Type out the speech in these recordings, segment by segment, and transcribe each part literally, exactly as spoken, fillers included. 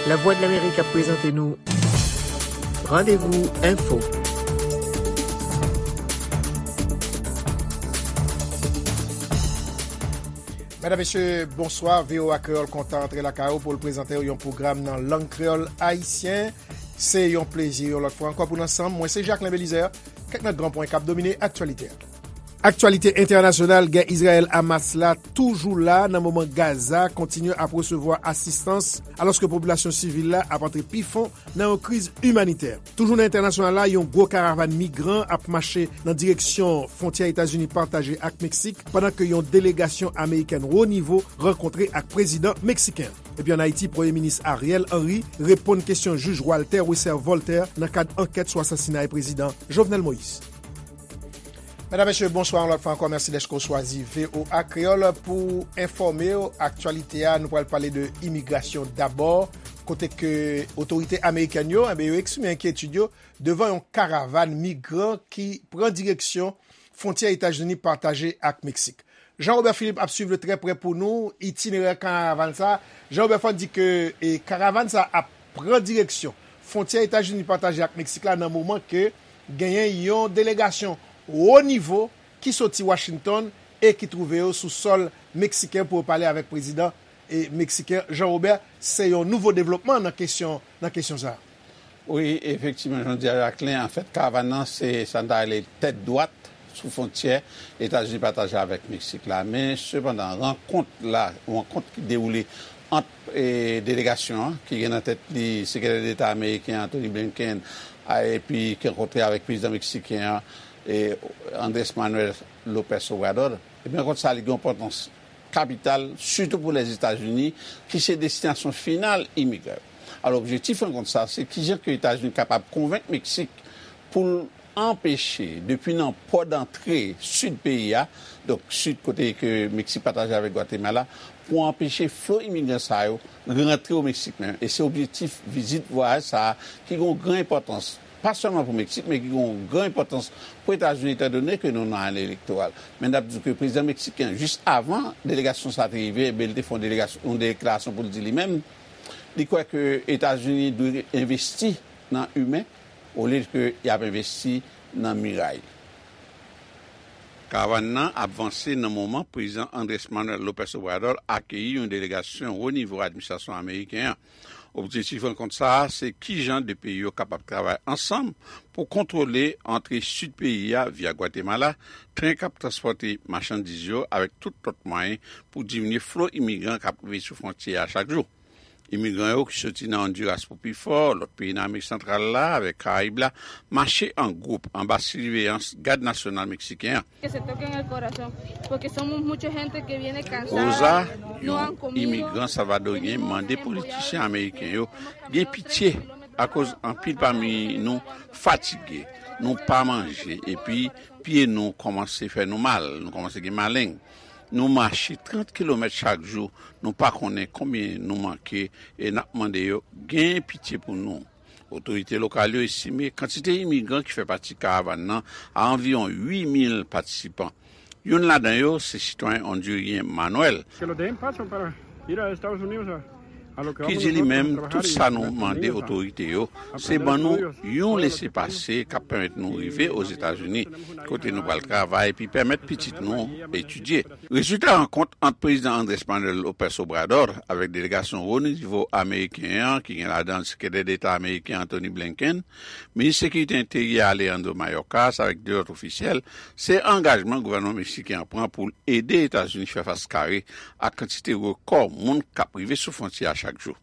Lavwadlamerik ap prezante nou Randevou Enfo. Medam, mesye, bonswa. V O A Kreyòl kontan antre lakay ou pou l prezante w yon pwogram nan lang kreyòl ayisyen. Se yon plezi yon lòt fwa ankò pou n ansanm. Mwen se Jacquelin Belizaire. Kèk nan gran pwen k ap domine aktyalite a. Aktyalite entènasyonal, gè Izrayèl-Hamas la toujou la nan moman Gaza kontinye ap resevwa asistans, alòske popilasyon sivil la ap antre pi fon nan yon kriz imanitè. Toujou nan entènasyonal la, yon gwo karavàn migran ap mache nan direksyon fwontyè Etazini pataje ak Meksik, pandan ke yon delegasyon amerikèn wo nivo rankontre ak prezidan meksiken. Epi ann Ayiti, Premye Minis Ariel Henry reponn kesyon jij Walter Wesser Voltaire nan kad ankèt sou asasinay prezidan Jovenel Moïse. Medam, mesye, bonswa yon lòt fwa ankò. Mèsi dèske w chwazi V O A Kreyòl pou enfòme w. Aktyalite a, nou pral pale de imigrasyon dabò, kote ke otorite amerikèn yo, enben, yo eksprime enkyetid yo devan yon karavàn migran ki pran direksyon fwontyè Etazini pataje ak Meksik. Jean Robert Philippe ap swiv trè prè pou nou itinerè karavàn sa. Jean Robert, fò n di ke e, karavàn sa ap pran direksyon fwontyè Etazini pataje ak Meksik la nan moman ke genyen yon delegasyon wo nivo ki soti Washington e ki twouve yo sou sòl meksiken pou yo pale avèk prezidan e, meksiken Jean Robert. Se yon nouvo devlopman nan kesyon, nan kesyon sa a. Wi, efektivman, jan w di a, Jacquelin, anfèt, karavàn nan, se sa n ta rele tèt dwat sou fwontyè Etazini pataje avèk Meksik la. Men, sepandan, rankont la, rankont ki dewoule ant e, delegasyon an, ki gen nan tèt li Sekretè Deta ameriken Antony Blinken, a, epi ki rankontre avèk prezidan meksiken an, e, Andrés Manuel López Obrador, epi rankont sa a, li gen yon enpòtans kapital, sitou pou Lèzetazini, ki se destinasyon final imigran yo. Alò, objektif rankont sa, se kijan ke Etazini kapab konvenk Meksik pou l anpeche, depi nan pò dantre sid peyi a, donk sid kote ke Meksik pataje avèk Gwatemala, pou anpeche flo imigran sa yo rantre o Meksik menm. E se objektif vizit vwayaj sa a ki gen yon gran enpòtans, pa sèlman pou Meksik, men ki gen yon gran enpòtans pou Etazini, etandone ke nou nan ane elektoral. Men n ap di ke prezidan meksiken, jis avan delegasyon sa a te rive, ebyen, li te fè yon delegasyon, yon deklarasyon pou l di li menm, li kwè ke Etazini dwe envesti nan imen, olye ke y ap envesti nan miray. Karavàn nan ap vanse nan moman prezidan Andrés Manuel López Obrador akeyi yon delegasyon wo nivo administrasyon ameriken an. Objektif rankont sa a, se kijan de peyi yo kapab travay ansanm pou kontwole antre sid peyi a via Gwatemala, tren k ap transpòte machandiz yo avèk tout lòt mwayen pou diminye flo imigran k ap rive sou fwontyè a chak jou. Imigran yo ki soti nan Ondiras pou pi fò, lòt peyi nan Amerik Santral la avèk Karayib la, mache an gwoup anba siveyans Gad Nasyonal meksiken an. Que se toquen el corazón, porque somos mucha gente que viene cansada, Rosa, no han yon comido, imigran salvadoryen, mande politisyen ameriken yo gen pitye akoz anpil pami nou fatige, nou pa manje, epi pye nou kòmanse fè nou mal, nou kòmanse gen maleng. Nou mache trant kilomèt chak jou, nou pa konnen konbyen nou manke e n ap mande yo gen pitye pou nou. Otorite lokal yo estime kantite imigran ki fè pati karavàn nan a anviwon uit mil patisipan. Youn ladan yo se sitwayen ondiryen Manuel, que nos dejen paso para ir a Estados Unidos a, a lo que ki vamos di li nosotros menm, a trabajar tout y sa nou mande otorite yo, se ban nou yon lesepase k ap pèmèt nou rive Ozetazini, kote nou pral travay epi pèmèt pitit nou etidye. Rezilta rankont ant prezidan Andrés Manuel López Obrador avèk delegasyon wo nivo ameriken an, ki gen ladan l Sekretè Deta ameriken Antony Blinken, minis sekirite enteryè Alejandro Mayorkas avèk de lòt ofisyèl, se angajman gouvènman meksiken an pran pou l ede Etazini fè fas kare ak kantite rekò moun k ap rive sou fwontyè a chak jou.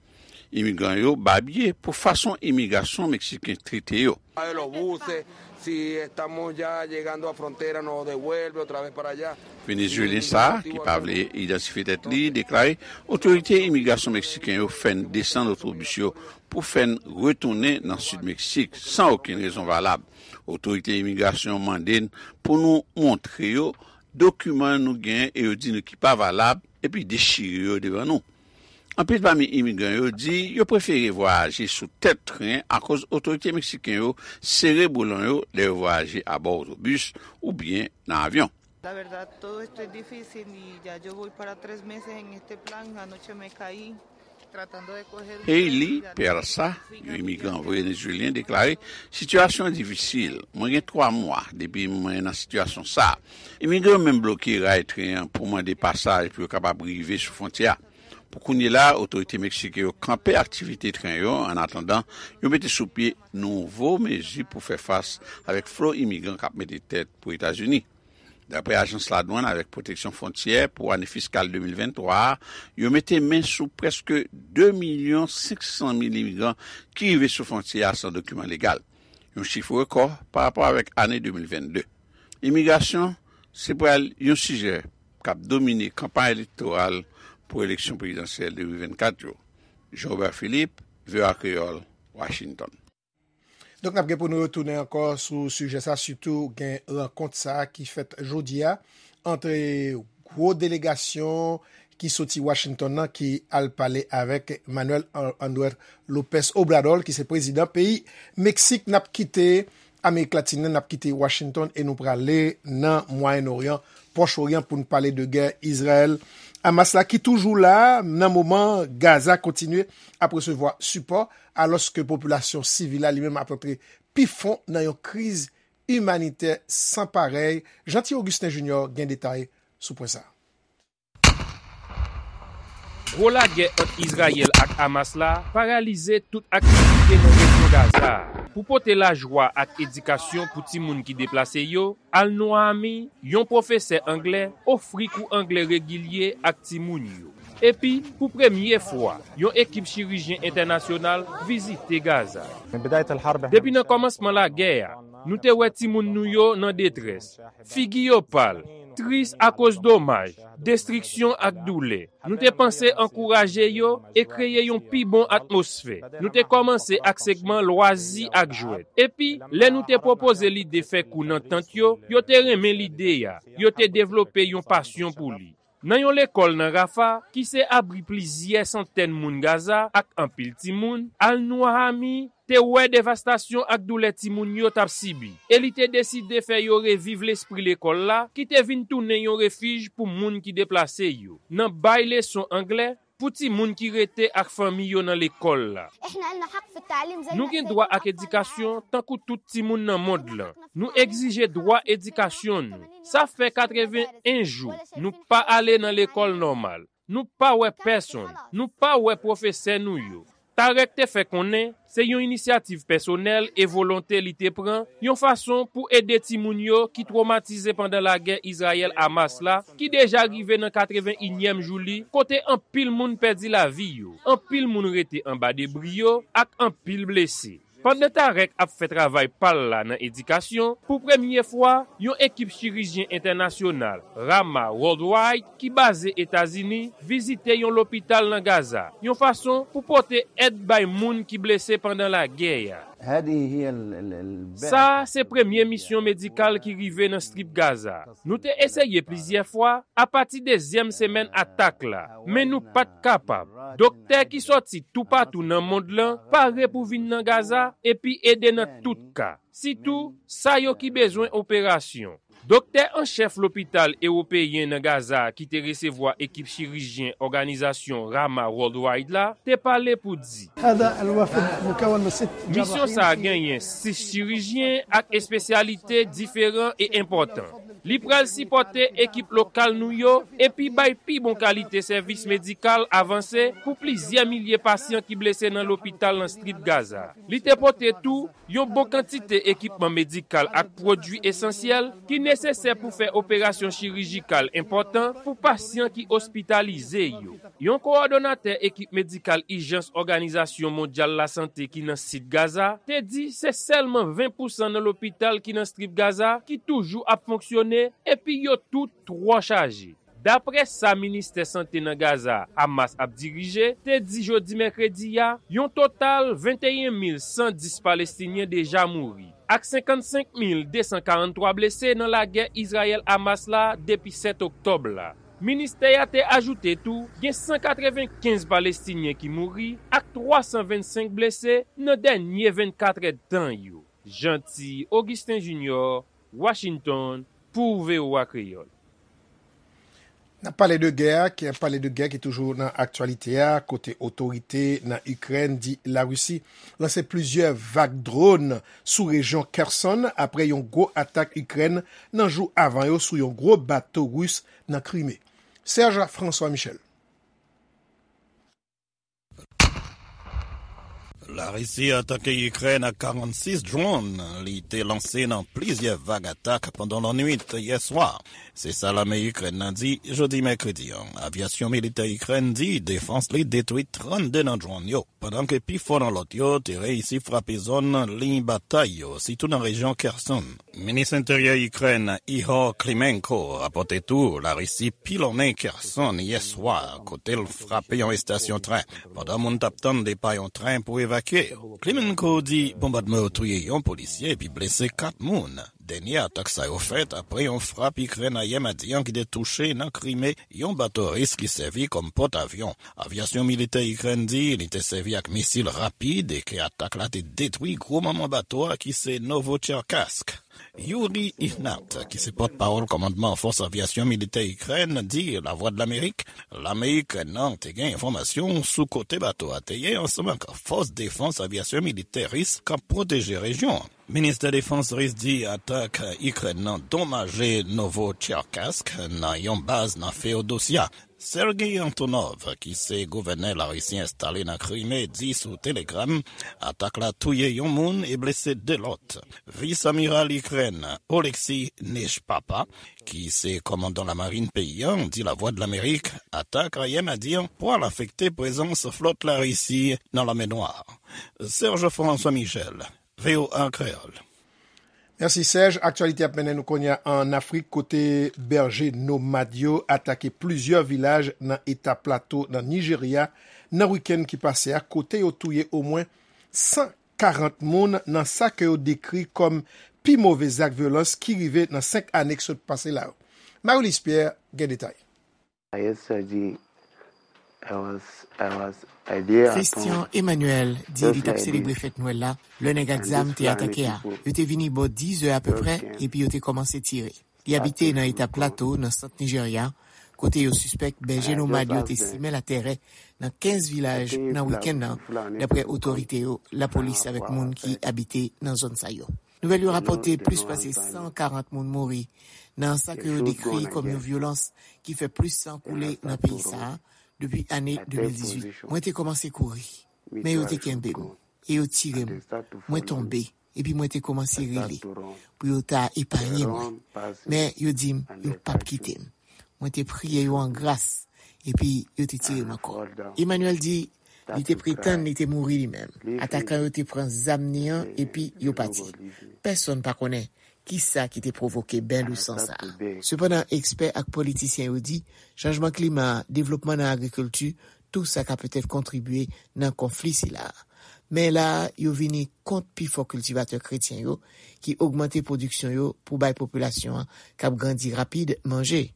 Imigran yo babye pou fason imigrasyon meksiken trete yo. De los buses, si estamos ya llegando a frontera, nos devuelve otra vez para allá. Venezuelyen sa a, ki pa vle idantifye tèt li, deklare otorite imigrasyon meksiken yo fè n desann otobis yo pou fè n retounen nan sid Meksik san okenn rezon valab. Otorite imigrasyon yo mande n pou nou montre yo dokiman nou genyen e yo di nou ki pa valab, epi dechire yo devan nou. Anpil pami imigran yo di yo prefere vwayaje sou tèt tren akoz otorite meksiken yo sere boulon yo lè yo vwayaje abò otobis oubyen nan avyon. La verdad, todo esto es difícil y ya yo voy para tres meses en este plan. Anoche me caí. Hailey Peralta, yon imigran venezuelyen, deklare: "Sitiyasyon an difisil. Mwen gen twa mwa depi mwen nan sitiyasyon sa a. Imigran yo menm bloke ray tren an pou mande pasaj pou yo kapab rive sou fwontyè a. Pou kounye la, otorite meksiken yo kanpe aktivite tren yo, annatandan yo mete sou pye nouvo mezi pou fè fas avèk flo imigran k ap mete tèt pou Etazini." Daprè Ajans Ladwann avèk Pwoteksyon Fwontyè, pou ane fiskal de mil venntwa a, yo mete men sou prèske de milyon senk san mil imigran ki rive sou fwontyè a san dokiman legal, yon chif rekò pa rapò avèk ane de mil vennde. Imigrasyon se pral yon sijè k ap domine kanpay elektoral pou eleksyon prezidansyèl de mil vennkat yo. Jean Robert Philippe, V O A Kreyòl, Washington. Donk, n ap gen pou nou retounen ankò sou sijè sa, sitou gen rankont sa ki fèt jodi a ant gwo delegasyon ki soti Washington nan ki al pale avèk Manuel André Lopez Obrador, ki se prezidan peyi Meksik. N ap kite Amerik Latin nan, n ap kite Washington e nou prale nan Mwayen Oryan, Pwòch Oryan, pou n pale de gè Izrayèl Hamas la ki toujou la nan moman Gaza kontinye ap resevwa sipò, alòske popilasyon sivil la li menm ap antre pi fon nan yon kriz imanitè san parèy. Jeanty Augustin Junior gen detay sou pwen sa a. Gwo lagè ant Izrayèl ak Hamas la paralize tout aktivite nan rejyon Gaza a. Pou pote lajwa ak edikasyon pou timoun ki deplase yo, Al-Nouhami, yon pwofesè anglè, ofri kou anglè regilye ak timoun yo. Epi, pou premye fwa, yon ekip chirijyen entènasyonal vizite Gaza. Depi nan kòmansman lagè a, nou te wè timoun nou yo nan detrès, figi yo pal, tris akoz domaj, destriksyon ak doulè. Nou te panse ankouraje yo e kreye yon pi bon atmosfè. Nou te kòmanse ak segman lwazi ak jwèt. Epi, lè nou te pwopoze lide fè kou nan tant yo, yo te renmen lide a. Yo te devlope yon pasyon pou li. Nan yon lekòl nan Rafah, ki se abri plizyè santèn moun Gaza ak anpil timoun, Al-Nouhami te wè devastasyon ak doulè timoun yo t ap sibi, e li te deside fè yo reviv lespri lekòl la ki te vin tounen yon refij pou moun ki deplase yo, nan bay leson anglè pou timoun ki rete ak fanmi yo nan lekòl la. Nou gen dwa ak edikasyon tankou tout timoun nan mond lan. Nou egzije dwa edikasyon nou. Sa fè katreven en jou nou pa ale nan lekòl nòmal. Nou pa wè pèsonn. Nou pa wè pwofesè nou yo. Tarek te fè konnen se yon inisyativ pèsonèl e volonte li te pran yon fason pou ede timoun yo ki twomatize pandan lagè Izrayèl-Hamas la, ki deja rive nan katreven inyèm jou li, kote anpil moun pèdi lavi yo, anpil moun rete anba debri yo ak anpil blese. Pandan Tarek ap fè travay pa l la nan edikasyon, pou premye fwa, yon ekip chirijyen entènasyonal, Rama Worldwide, ki baze Etazini, vizite yon lopital nan Gaza, yon fason pou pote èd bay moun ki blese pandan lagè a. Sa a se premye misyon medikal ki rive nan Strip Gaza. Nou te eseye plizyè fwa apati dezyèm semèn atak la, men nou pa t kapab. Doktè ki sòti toupatou nan mond lan pare pou vin nan Gaza epi ede nan tout ka, sitou sa yo ki bezwen operasyon. Doktè an chèf lopital ewopeyen nan Gaza a ki te resevwa ekip chirijyen òganizasyon Rama Worldwide la te pale pou di: Misyon sa a genyen sis chirijyen ak espesyalite diferan e enpòtan. Li pral sipòte ekip lokal nou yo epi bay pi bon kalite sèvis medikal avanse pou plizyè milye pasyan ki blese nan lopital nan Strip Gaza. Li te pote tou yon bon kantite ekipman medikal ak pwodui esansyèl ki nesesè pou fè operasyon chirijikal enpòtan pou pasyan ki ospitalize yo. Yon kowòdonatè ekip medikal ijans Òganizasyon Mondyal Lasante ki nan sid Gaza te di se sèlman ven pousan nan lopital ki nan Strip Gaza ki toujou ap fonksyone epi yo tout twò chaje. Daprè sa ministè sante nan Gaza, Hamas ap dirije, te di jodi mèkredi a, yon total venteyen mil san dis Palestinyen deja mouri, ak senkannsenk mil de san karanntwa blese nan lagè Izrayèl-Hamas la depi sèt oktòb la. Ministè a te ajoute tou, gen san katrevenkenz Palestinyen ki mouri ak twa san vennsenk blese nan dènye vennkat èdtan yo. Jeanty Augustin Junior, Washington, pou V O A Kreyòl. N ap pale de gè a, ki ap pale de gè ki toujou nan aktyalite a, kote otorite nan Ikrèn di Larisi lanse plizyè vag dwòn sou rejyon Kherson apre yon gwo atak Ikrèn nan jou avan yo sou yon gwo bato ris nan Krime. Serge François Michel. Larisi atake Ikrèn ak karannsis dwòn li te lanse nan plizyè vag atak pandan lannwit yè swa. Se sa lame Ikrèn nan di jodi mèkredi an. Avyasyon militè Ikrèn di defans li detwi trannde nan dwòn yo, pandan ke pifò nan lòt yo te reyisi frape zòn liy batay yo, sitou nan rejyon Kherson. Minis Enteryè Ikrèn Ihor Klimenko rapòte tou Larisi pilonnen Kherson yè swa, kote l frape yon estasyon tren, pandan moun t ap tann depa yon tren pou evakye yo. Klimenko di bonbadman yo touye yon polisye epi blese kat moun. Dènye atak sa yo fèt apre yon frap Ikrèn ayè madi an ki te touche nan Krime yon bato ris ki sèvi kòm pòtavyon. Avyasyon militè Ikrèn di li te sèvi ak misil rapid e ke atak la te detwi gwo manman bato a ki se Novocherkassk. Yuri Ihnat, ki se pòtpawòl kòmandman fòs avyasyon militè Ikrèn, di Lavwadlamerik, lame Ikrèn nan te gen enfòmasyon sou kote bato a te ye ansanm ak fòs defans avyasyon militè ris k ap pwoteje rejyon an. Ministè Defans ris di atak Ikrèn nan donmaje Novocherkassk nan yon baz nan Feodosya. Sergei Antonov, ki se gouvènè Larisi enstale nan Krime, di sou Telegram, atak la touye yon moun e blese de lòt. Vis amiral Ikrèn, Oleksiy Nechpapa, ki se kòmandan lamarin peyi an, di Lavwadlamerik, atak ayè madi an pral afekte prezans flòt Larisi nan Lanmè Nwa. Serge François Michel, V O A Kreyòl. Mèsi, Serge. Aktyalite ap mennen nou kounye a ann Afrik, kote bèje nomad yo atake plizyè vilaj nan eta Plato nan Nijerya nan wikenn ki pase a, kote yo touye omwen san karant moun nan sa ke yo dekri kòm pi move zak vyolans ki rive nan senk ane ki sot pase la yo. Marie-Luce Pierre gen detay. Christian Emmanuel di li t ap selebre fèt Nwèl la lè nèg ak zam te atake a. Yo te vini bò diz è apeprè epi yo te kòmanse tire. Li abite nan eta Plato, nan sant Nijerya, kote yo sispèk bèje nomad yo te simen latèrè nan kenz vilaj nan wikenn nan, dapre otorite yo, lapolis avèk moun ki abite nan zòn sa yo. Nouvèl yo rapòte plis pase san karant moun mouri nan sa ke yo dekri kòm yon vyolans ki fè plis san koule nan peyi sa a depi ane de mil dizuit. Mwen te kòmanse kouri, men yo te kenbe m e yo tire m. Mwen tonbe, epi mwen te kòmanse rele pou yo ta epaye mwen. Men yo di m yo p ap kite m. Mwen te priye yo an gras, epi yo te tire m ankò. Emmanuel di li te pretann li te mouri li menm. Atakan yo te pran zam ni an epi yo pati. Pèsonn pa konnen kisa ki te pwovoke ben lou san sa a. Sepandan, ekspè ak politisyen yo di chanjman klima, devlopman nan agrikilti, tou sa ka petèt kontribye nan konfli sila a. Men la a, yo vini kont pifò kiltivatè kretyen yo ki ogmante pwodiksyon yo pou bay popilasyon an k ap grandi rapid manje.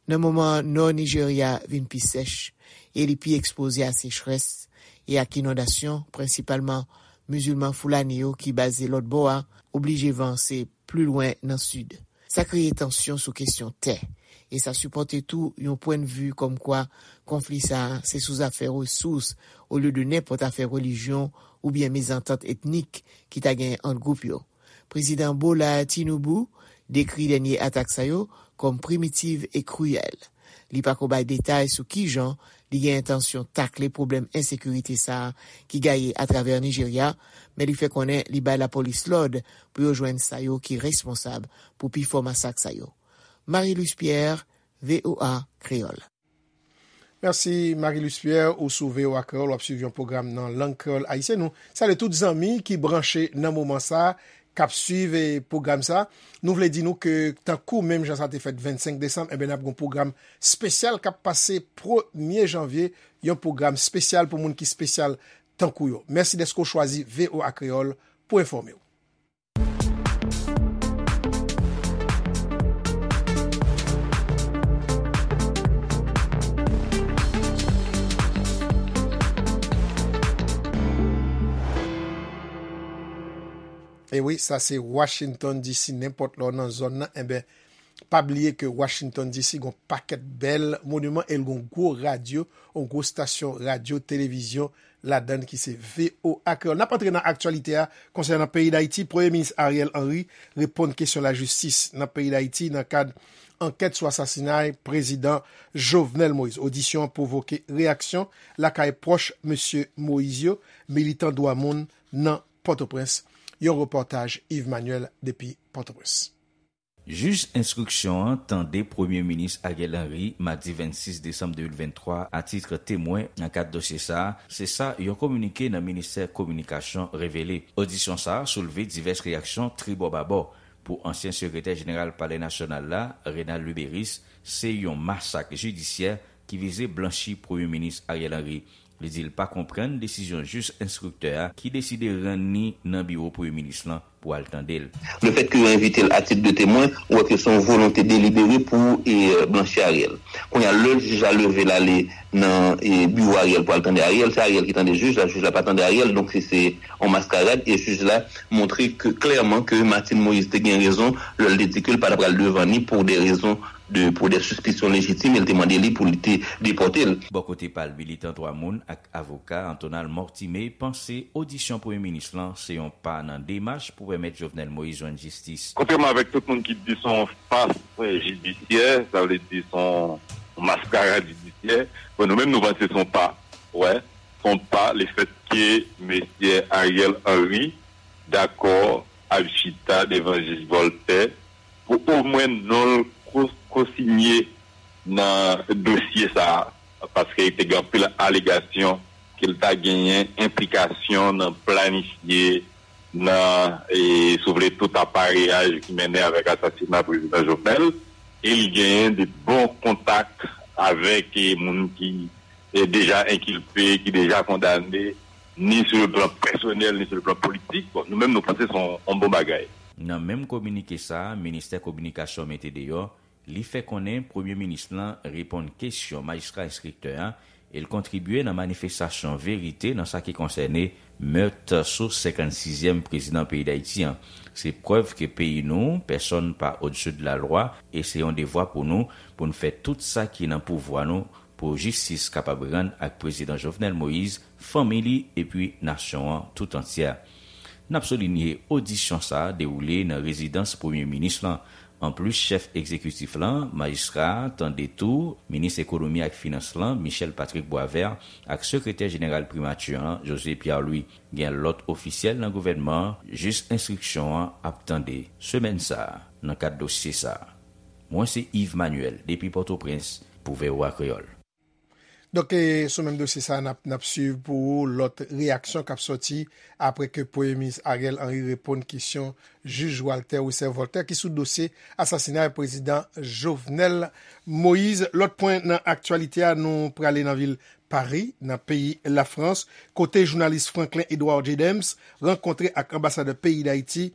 Nan moman Nò Nijerya vin pi sèch e li pi ekspoze a sechrès e ak inondasyon, prensipalman mizilman Foulani yo ki baze lòt bò a oblije vanse pli lwen nan sid. Sa kreye tansyon sou kesyon tè, e sa sipòte tou yon pwennvi kòmkwa konfli sa a se sou zafè resous olye de nenpòt afè relijyon oubyen mezantant etnik ki ta genyen ant gwoup yo. Prezidan Bola Tinubu dekri dènye atak sa yo kòm primitiv e kriyèl. Li pako bay detay sou kijan li gen entansyon takle pwoblèm ensekirite sa a ki gaye atravè Nijerya, men li fè konnen li bay lapolis lòd pou yo jwenn sa yo ki responsab pou pifò masak sa yo. Marie-Luce Pierre, V O A Kreyòl. Mèsi, Marie-Luce Pierre, ou sou V O A Kreyòl, w ap swiv yon pwogram nan lang kreyòl ayisyen. Nou salye tout zanmi ki branche nan moman sa a, k ap swiv, eh, pwogram sa a. Nou vle di nou ke, tankou menm jan sa te fèt vennsenk desanm, enben, n ap gen yon pwogram espesyal k ap pase premye janvye, yon pwogram espesyal pou moun ki espesyal tankou yo. Mèsi dèske w chwazi V O A Kreyòl pou enfòme w. E wi, sa se Washington D C, nenpòt lè w nan zòn nan, enben, Pa bliye ke Washington D C gon pakèt bèl moniman e l gon gwo radyo, yon gwo stasyon radyo, televizyon ladan l ki se V O A Kreyòl. N ap antre nan aktyalite a konsènan peyi Dayiti. Premye Minis Ariel Henry reponn kesyon lajistis nan peyi Dayiti nan kad ankèt sou asasinay Prezidan Jovenel Moïse. Odisyon an pwovoke reyaksyon lakay pwòch Mesye Moïse yo, militan dwa moun nan Pòtoprens. Yon repòtaj Yves Manuel depi Pòtoprens. Jij enstriksyon an tande Premye Minis Ariel Henry madi vennsis desanm de mil venntwa a tit temwen nan kad dosye sa a, se sa yon kominike nan Ministè Kominikasyon revele. Odisyon sa a soulve divès reyaksyon tribò babò. Pou ansyen Sekretè Jeneral Palè Nasyonal la, Renald Luberice, se yon masak jidisyè ki vize blanchi Premye Minis Ariel Henry. Li di l pa konprann desizyon jij enstriktè a ki deside rann li nan biwo Premye Minis lan pou al tande l. Lefètke yo envite l atit de temwen, ou wè ke se yon volonte delibere pou e, blanchi Ariel. Kounye a, lè jij la leve l ale nan e, biwo Ariel pou al tande Ariel, se Ariel ki tande jij la, jij la pa tande Ariel, donk se se yon maskarad, e jij la montre ke klèman ke Martine Moïse te gen rezon lè l te di ke l pa t ap pral devan ni pou de rezon de pou de sispisyon lejitim e l te mande li pou li te depòte l. Bò kote pa l, militan dwa moun ak avoka Antonal Mortimé panse odisyon Premye Minis lan se yon pa nan demach pou pèmèt Jovenel Moïse jwenn jistis. Kontrèman avèk tout moun ki di se yon fas jidisyè, sa vle di se yon maskarad jidisyè, bon, nou menm nou panse se yon pa, wè, se yon pa lefètke mesye Ariel Henry dakò ap chita devan jij Voltaire pou omwen non l ko- kosinye nan dosye sa a, paske te gen anpil alegasyon ke l ta genyen enplikasyon nan planifye, nan, e, si w vle, tout apareyaj ki mennen avèk asasina Prezidan Jovenel, e li genyen de bon kontak avèk e, moun ki e, deja enkilpe, ki deja kondane, ni sou le plan pèsonèl, ni sou le plan politik. Bon, nou menm, nou panse se yon, yon bon bagay. Nan menm kominike sa a, Ministè Kominikasyon mete deyò, li fè konnen Premye Minis lan reponn kesyon majistra enstriktè a e l kontribye nan manifestasyon verite nan sa ki konsène mèt sou senkann sizyèm prezidan peyi Dayiti an. Se prèv ke peyi nou, pèsonn pa au-dessus de la loi, e se yon devwa pou nou, pou n fè tout sa ki nan pouvwa nou pou jistis kapab rann ak Prezidan Jovenel Moïse, fanmi li epi nasyon an tout antyè. N ap soulinye odisyon sa a dewoule nan rezidans Premye Minis lan. Anplis chèf egzekitif lan, majistra a tande tou minis ekonomi ak finans lan, Michel Patrick Boisvert, ak sekretè jeneral primati an, José Pierre Louis. Gen lòt ofisyèl nan gouvènman an, jij enstriksyon an ap tande semèn sa a nan kad dosye sa a. Mwen se Yves Manuel depi Pòtoprens pou V O A Kreyòl. Donk, e, sou menm dosye sa a, n ap, n ap swiv pou ou lòt reyaksyon k ap sòti apre ke Premye Minis Ariel Henry reponn kesyon jij Walter Wesser Voltaire ki sou dosye asasinay Prezidan Jovenel Moïse. Lòt pwen nan aktyalite a, nou prale nan vil Pari, nan peyi Lafrans, kote jounalis Franklin Edouard Jedems rankontre ak anbasadè peyi Dayiti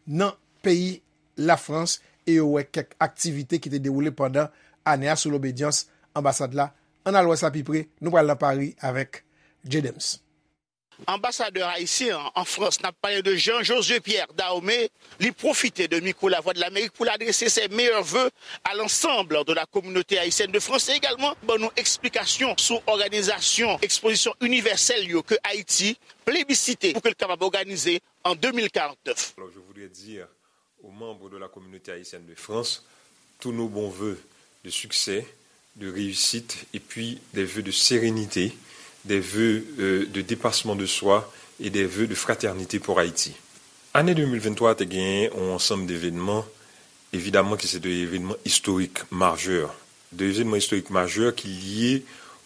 nan peyi Lafrans e yo wè kèk aktivite ki te dewoule pandan ane a sou lobedyans anbasad la. Ann al wè sa pi pre, nou pral nan Pari avèk Jedems. Anbasadè ayisyen an an Frans, n ap pale de Jean Josué Pierre Dahomey, li pwofite de mikwo Lavwadlamerik pou l adrese ses meilleurs vœux à l'ensemble de la communauté haïtienne de France e egalman ban nou eksplikasyon sou òganizasyon ekspozisyon inivèsèl yo ke Ayiti plebisite pou ke l kapab òganize an de mil karant nèf. Alors, je voudrais dire aux membres de la communauté haïtienne de France tous nos bons vœux de succès, de réussite, et puis des vœux de sérénité, des vœux euh, de dépassement de soi et des vœux de fraternité pour Haïti. Ane de mil venntwa te genyen yon ansanm devenman, evidaman ki se te evenman istorik majè, de evenman istorik majè ki lye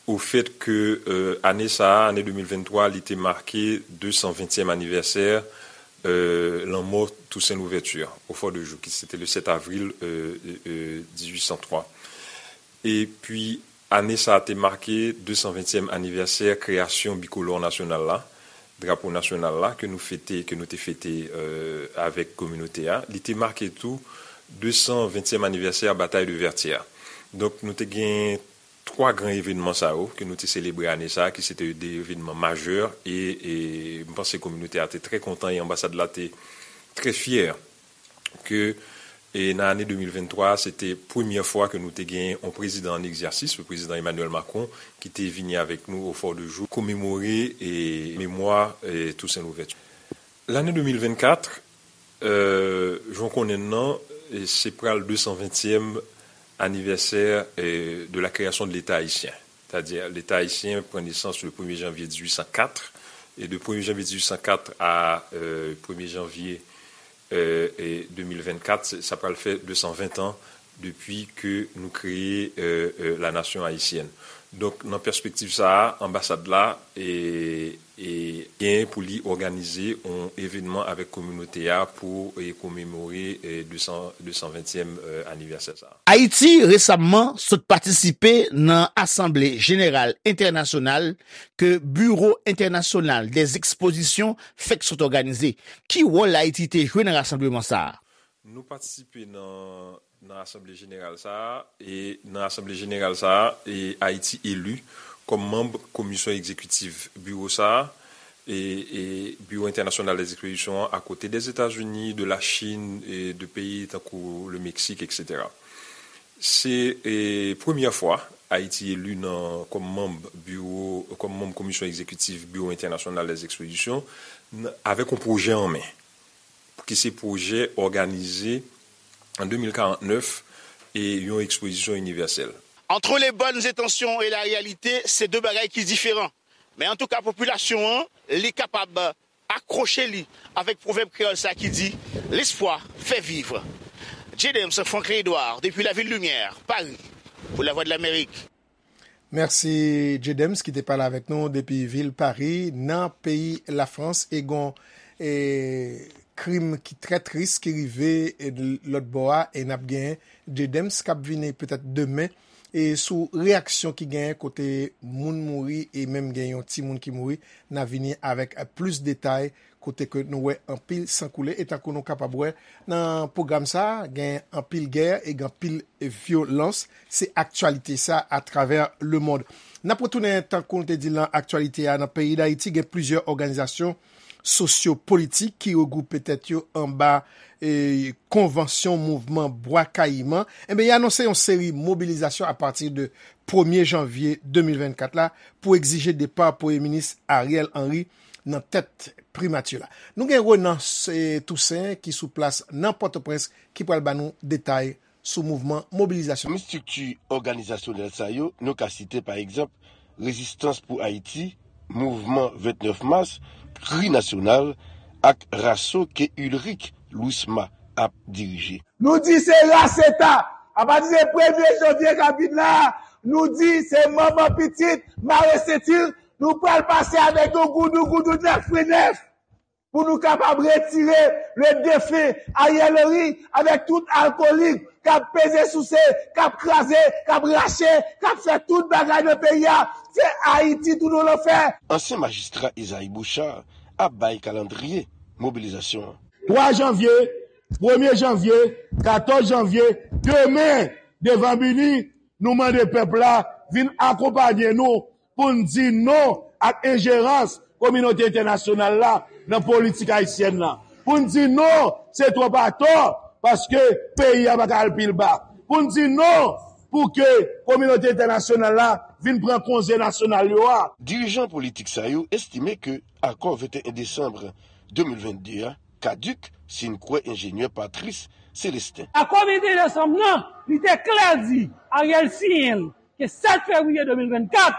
au fait que euh, ane sa a, ane de mil venntwa, li te make de san ventyèm anivèsè euh, lanmò Toussaint Louverture au Fort de Joux, ki se te le sèt avril euh, euh, dizuit san twa. Epi, ane sa a te make de san ventyèm anivèsè kreyasyon bikolò nasyonal la, drapo nasyonal la, ke nou fete, ke nou te fete euh, avèk kominote a. Li te make tou de san ventyèm anivèsè Batay de Vètyè. Donk, nou te gen twa gran evenman sa yo ke nou te selebre ane sa a, ki se te de evenman majè, e, e m panse kominote a te trè kontan e anbasad la te trè fyè ke E nan ane de mil venntwa, se te premyè fwa ke nou te genyen yon prezidan an egzèsis, le prezidan Emmanuel Macron, ki te vini avèk nou au Fort de Joux, komemore e memwa e Toussaint Louverture. Lane de mil vennkat, euh, jan w konnen l nan, e se pral de san ventyèm anivèsè, euh, de la création de l'État haïtien. C'est-à-dire, l'État haïtien pran nesans le premye janvye dizuit san kat, e de premye janvye dizuit san kat a, euh, premye janvye, euh, e de mil vennkat, sa pral fè de san ven an depi ke nou kreye, euh, euh, la nation haïtienne. Donk, nan pèspektiv sa a, anbasad la, e, e genyen pou li òganize yon evènman avèk kominote a pou, e, komemore, e, de san, de san ventyèm, euh, anivèsè sa a. Ayiti resamman sot patisipe nan Asanble Jeneral Entènasyonal ke Biwo Entènasyonal dè Ekspozisyon fèk sot òganize. Ki wòl Ayiti te jwe nan rasanbleman sa a? Nou patisipe nan, nan Asanble Jeneral sa a, e nan Asanble Jeneral sa a, e Ayiti eli kòm manm Komisyon Egzekitif Biwo sa a, e, e Biwo Entènasyonal dè Ekspozisyon an, akote dè Etazini, de la Chine, e de peyi tankou le Mexique, et cetera. Se, e, premyè fwa Ayiti eli nan, kòm manm biwo, kòm manm Komisyon Egzekitif Biwo Entènasyonal dè Ekspozisyon, n-, avèk yon pwojè an men, ki se pwojè òganize an de mil karant nèf e yon ekspozisyon inivèsèl. Entre les bonnes intentions et la réalité, se de bagay ki diferan. Men antouka, popilasyon an, li kapab akwoche li avèk pwovèb kreyòl sa ki di, l'espoir fait vivre. J. Dems, Franklin Edouard, depuis la ville Lumière, Paris, pour la Voix de l'Amérique. Mèsi, J. Dems, ki te pale avèk nou depi vil Pari, nan peyi Lafrans, e gon, e, krim ki trè tris ki rive, e, lòt bò a, e n ap gen J. Dems k ap vini petèt demen, e sou reyaksyon ki genyen kote moun mouri e menm gen yon timoun ki mouri, n a vini avèk plis detay kote ke nou wè anpil san koule. E tankou nou kapab wè nan pwogram sa a, gen anpil gè e gen anpil vyolans. Se aktyalite sa atravè lemond. N ap retounen, tankou nou te di l nan aktyalite a, nan peyi Dayiti, gen plizyè òganizasyon sosyo-politik ki regwoupe tèt yo anba, e, konvansyon mouvman Bwa Kayiman. Enben, y anonse yon seri mobilizasyon apati de premye janvye de mil vennkat la pou egzije depa Premye Minis Ariel Henry nan tèt primati la. Nou gen Renan, e, Toussaint ki sou plas nan Pòtoprens ki pral ba nou detay sou mouvman mobilizasyon. Pami estrikti òganizasyonèl sa yo, nou ka site, pa egzanp, Rezistans pou Ayiti, Mouvman vennèf Mas, Kri Nasyonal ak Raso ke Ulrich Louisma ap dirije. Nou di se raseta. Apati de premye janvye k ap vin la, nou di se manman pitit, mare senti l, nou pral pase avèk yon goudougoudou nèf pou nèf. Pou nou kapab retire le defen Ariel Henry avèk tout alkolik k ap peze souse, k ap kraze, k ap rache, k ap fè tout bagay nan peyi a. Se Ayiti tounen w lanfè. Ansyen majistra Isaïe Bouchard ap bay kalandriye mobilizasyon an. Twa janvye, premye janvye, katòz janvye, demen, devan Bini, nou mande pèp la vin akonpaye nou pou n di non ak enjerans kominote entènasyonal la nan politik ayisyèn nan. Pou n di non, se twòp atò, paske peyi a pa ka al pi ba. Pou n di non, pou ke kominote entènasyonal la vin pran konze nasyonal yo a. Dirijan politik sa yo estime ke akò venteyen desanm de mil vennde a kadik, si n kwè enjenyè Patrice Célestin. Akò venteyen desanm nan, li te klè di, Ariel siyen l, ke sèt fevriye de mil vennkat,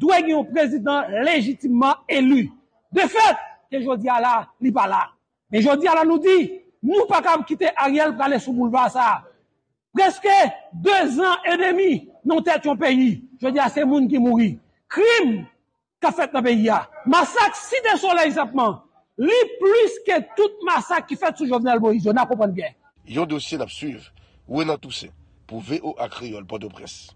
dwe gen yon prezidan lejitimman eli. De fèt, ke jodi a la, li pa la. Men jodi a la, nou di, nou pa kab kite Ariel prale sou boulva sa a. Prèske de zan edemi nan tèt yon peyi. Jodi a, se moun ki mouri. Krim k ap fèt nan peyi a. Masak Site Solèy senpman, li plis ke tout masak ki fèt sou Jovenel Moïse yo, n a konprann byen. Yon dosye n ap swiv. Renan Toussaint, pou V O A Kreyòl, Pòtoprens.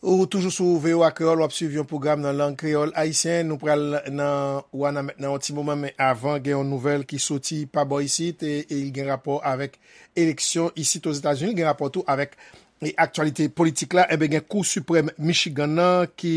Ou toujou sou V O A Kreyòl, w ap swiv yon pwogram nan lang kreyòl ayisyen. Nou pral nan Wanament nan yon ti moman, men avan, gen yon nouvèl ki soti pa bò isit, e, e li gen rapò avèk eleksyon isit Ozetazini, li gen rapò tou avèk e aktyalite politik la, enben, gen Kou Siprèm Michigan nan ki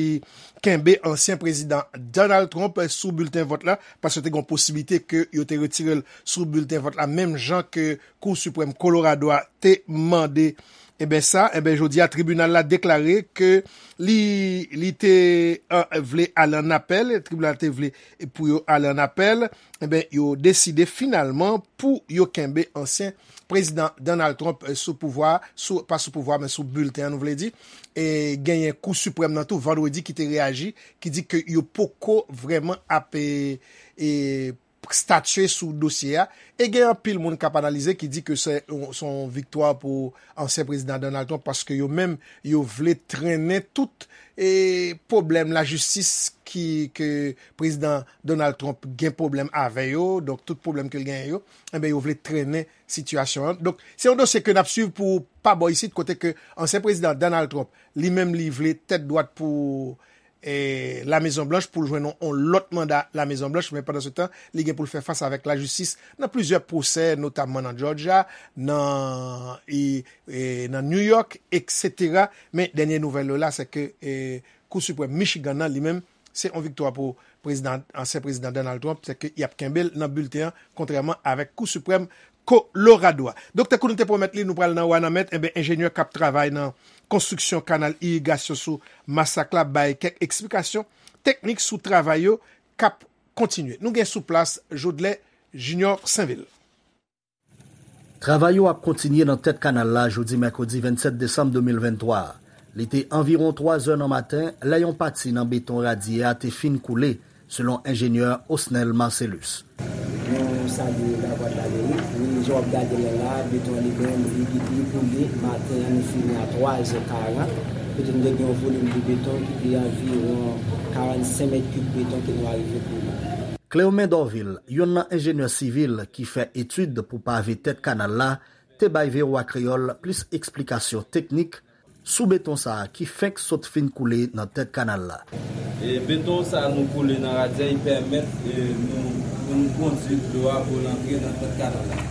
kenbe ansyen prezidan Donald Trump sou bilten vòt la, paske te gen posiblite ke yo te retire l sou bilten vòt la, menm jan ke Kou Siprèm Kolorado a te mande. Enben sa, enben, jodi a, tribinal la deklare ke li, li te, eh, vle ale an apèl, tribinal te vle pou yo ale an apèl, enben, yo deside finalman pou yo kenbe ansyen prezidan Donald Trump, eh, sou pouvwa, sou, pa sou pouvwa, men sou bilten an, nou vle di. E genyen Kou Siprèm nan tou, vandredi, ki te reyaji, ki di ke yo poko vrèman ap, eh, eh, statye sou dosye a. E gen anpil moun k ap analize ki di ke se yon, se yon viktwa pou ansyen prezidan Donald Trump, paske yo menm, yo vle trennen tout, eh, pwoblèm lajistis ki, ke prezidan Donald Trump gen pwoblèm avè yo, donk tout pwoblèm ke l genyen yo, enben, yo vle trennen sitiyasyon an. Donk, se yon dosye ke n ap swiv pou pa bò isit, kote ke ansyen prezidan Donald Trump, li menm, li vle tèt dwat pou, eh, La Mezon Blanch, pou l jwenn yon, yon lòt manda La Mezon Blanch, men pandan se tan, li gen pou l fè fas avèk lajistis nan plizyè pwosè, notamman nan Georgia, nan, e, e, nan New York, etsetera. Men dènye nouvèl yo la, se ke, eh, Kou Siprèm Michigan nan, li menm, se yon viktwa pou prezidan, ansyen prezidan Donald Trump, se ke y ap kenbe l nan bilten an, kontrèman avèk Kou Siprèm Kolorado a. Donk, tankou nou te pwomèt li, nou pral nan Wanament, enben, enjenyè k ap travay nan konstriksyon kanal irigasyon sou Masak la bay kèk eksplikasyon teknik sou travay yo k ap kontinye. Nou gen sou plas Jodlè Junior Sainvil. Travay yo ap kontinye nan tèt kanal la jodi mèkredi vennsèt desanm de mil venntwa a. Li te anviwon twa zè nan maten lè yon pati nan beton radye a te fin koule, selon enjenyè Osnel Marcellus. Nou salye Lavwadlamerik. Wi, jan w ap gade lè la, beton an li menm, li, li, li koule. Maten an, nou fini a twa zè karant. Kote nou te gen yon volim de beton ki te anviwon karannsenk mèt kib beton ke nou arive koule. Cléomen Dorvil, youn nan enjenyè sivil ki fè etid pou pave tèt kanal la, te bay V O A Kreyòl plis eksplikasyon teknik sou beton sa a ki fenk sot fin koule nan tèt kanal la. E beton sa a nou koule nan radyè, li pèmèt, e, nou, pou nou kondui dlo a pou l antre nan tèt kanal la.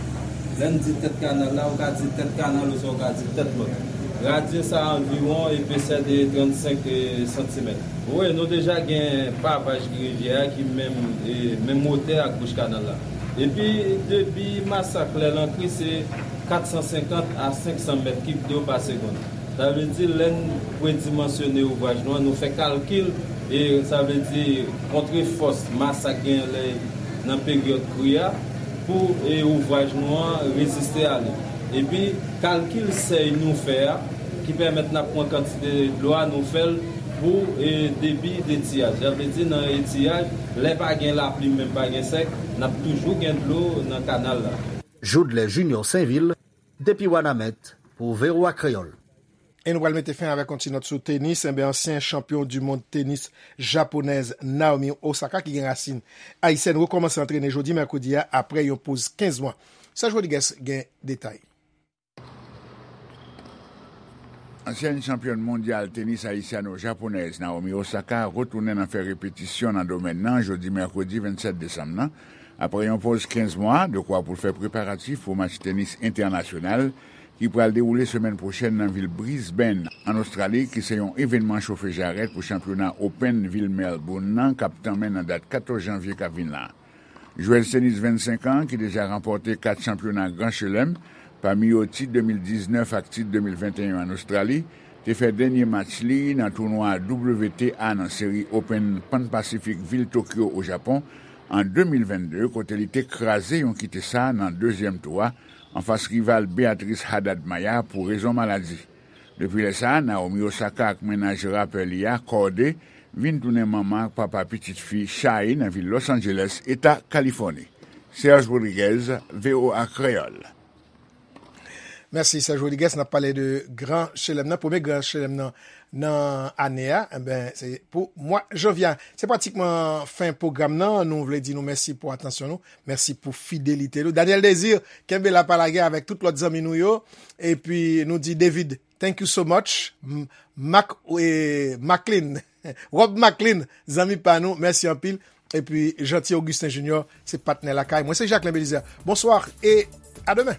Lè n di tèt kanal la, ou ka di tèt kanal oswa ou ka di tèt lòt. Radyè sa a anviwon epesè de trannsenk, e, santimèt. Wi, nou deja gen pavaj rivyè a ki menm, e, menm wotè ak bouch kanal la. Epi, debi Masak lè l antre, se katsansenkant a senksan mèt kib dlo pa segonn. Sa vle di, lè n redimansyone ouvraj nou an, nou fè kalkil, e sa vle di, kontre fòs Masak genyen lè nan peryòd kri a, pou, e, ouvraj nou an reziste a li. Epi, kalkil sèy nou fè a, ki pèmèt n ap pran kantite dlo a, nou fè l pou, e, debi detiyaj. Sa vle di, nan etiyaj, lè pa gen lapli, menm pa gen sèk, n ap toujou gen dlo nan kanal la. Jodlè Junior Sainvil, depi Wanament, pou V O A Kreyòl. E nou pral mete fen avèk yon ti nòt sou tenis. Enben, ansyen chanpyon di mond tenis japonèz Naomi Osaka, ki gen rasin ayisyèn, rekòmanse antrene jodi mèkredi a, apre yon poz kenz mwa. Serge Rodriguez gen detay. Ansyèn chanpyòn mondyal tenis ayisyano-japonèz Naomi Osaka retounen nan fè repetisyon nan domèn nan jodi mèkredi vennsèt desanm nan, apre yon poz kenz mwa, dekwa pou l fè preparatif pou match tenis entènasyonal ki pral dewoule semèn pwochèn nan vil Brisbane, ann Ostrali, ki se yon evènman chofe jarèt pou chanpyona Open vil Melbourne nan, k ap tanmen nan dat katòz janvye k ap vin la. Jwèz tenis vennsenk an, ki deja ranpòte kat chanpyona Gran Chelèm, pami yo tit de mil diznèf ak tit de mil venteyen ann Ostrali, te fè dènye match li nan tounwa W T A nan seri Open Pan Pacific vil Tokyo, o Japon, an de mil vennde, kote li te kraze yon kitesa nan dezyèm tou a, anfas rival Beatriz Haddad Maia pou rezon maladi. Depi lè sa a, Naomi Osaka ak mennaj rapè li a, Cordae, vin tounen manman ak papa pitit fi Shai nan vil Los Angeles, eta Kalifòni. Serge Rodriguez, V O A Kreyòl. Mèsi, Serge Rodriguez. N ap pale de Gran Chelèm nan, premye Gran Chelèm nan, nan ane a, enben, se pou mwa janvye a. Se pratikman fen pwogram nan. Nou vle di nou mèsi pou atansyon nou. Mèsi pou fidelite nou. Daniel Désir, kenbe la, pa lage avèk tout lòt zanmi nou yo. Epi nou di David, thank you so much. M-, Mac, e, Maclean, Rob Maclean, zanmi pa nou, mèsi anpil. Epi Jeanty Augustin Junior, se patnè lakay mwen. Se Jacquelin Belizaire. Bonsoir et à demain.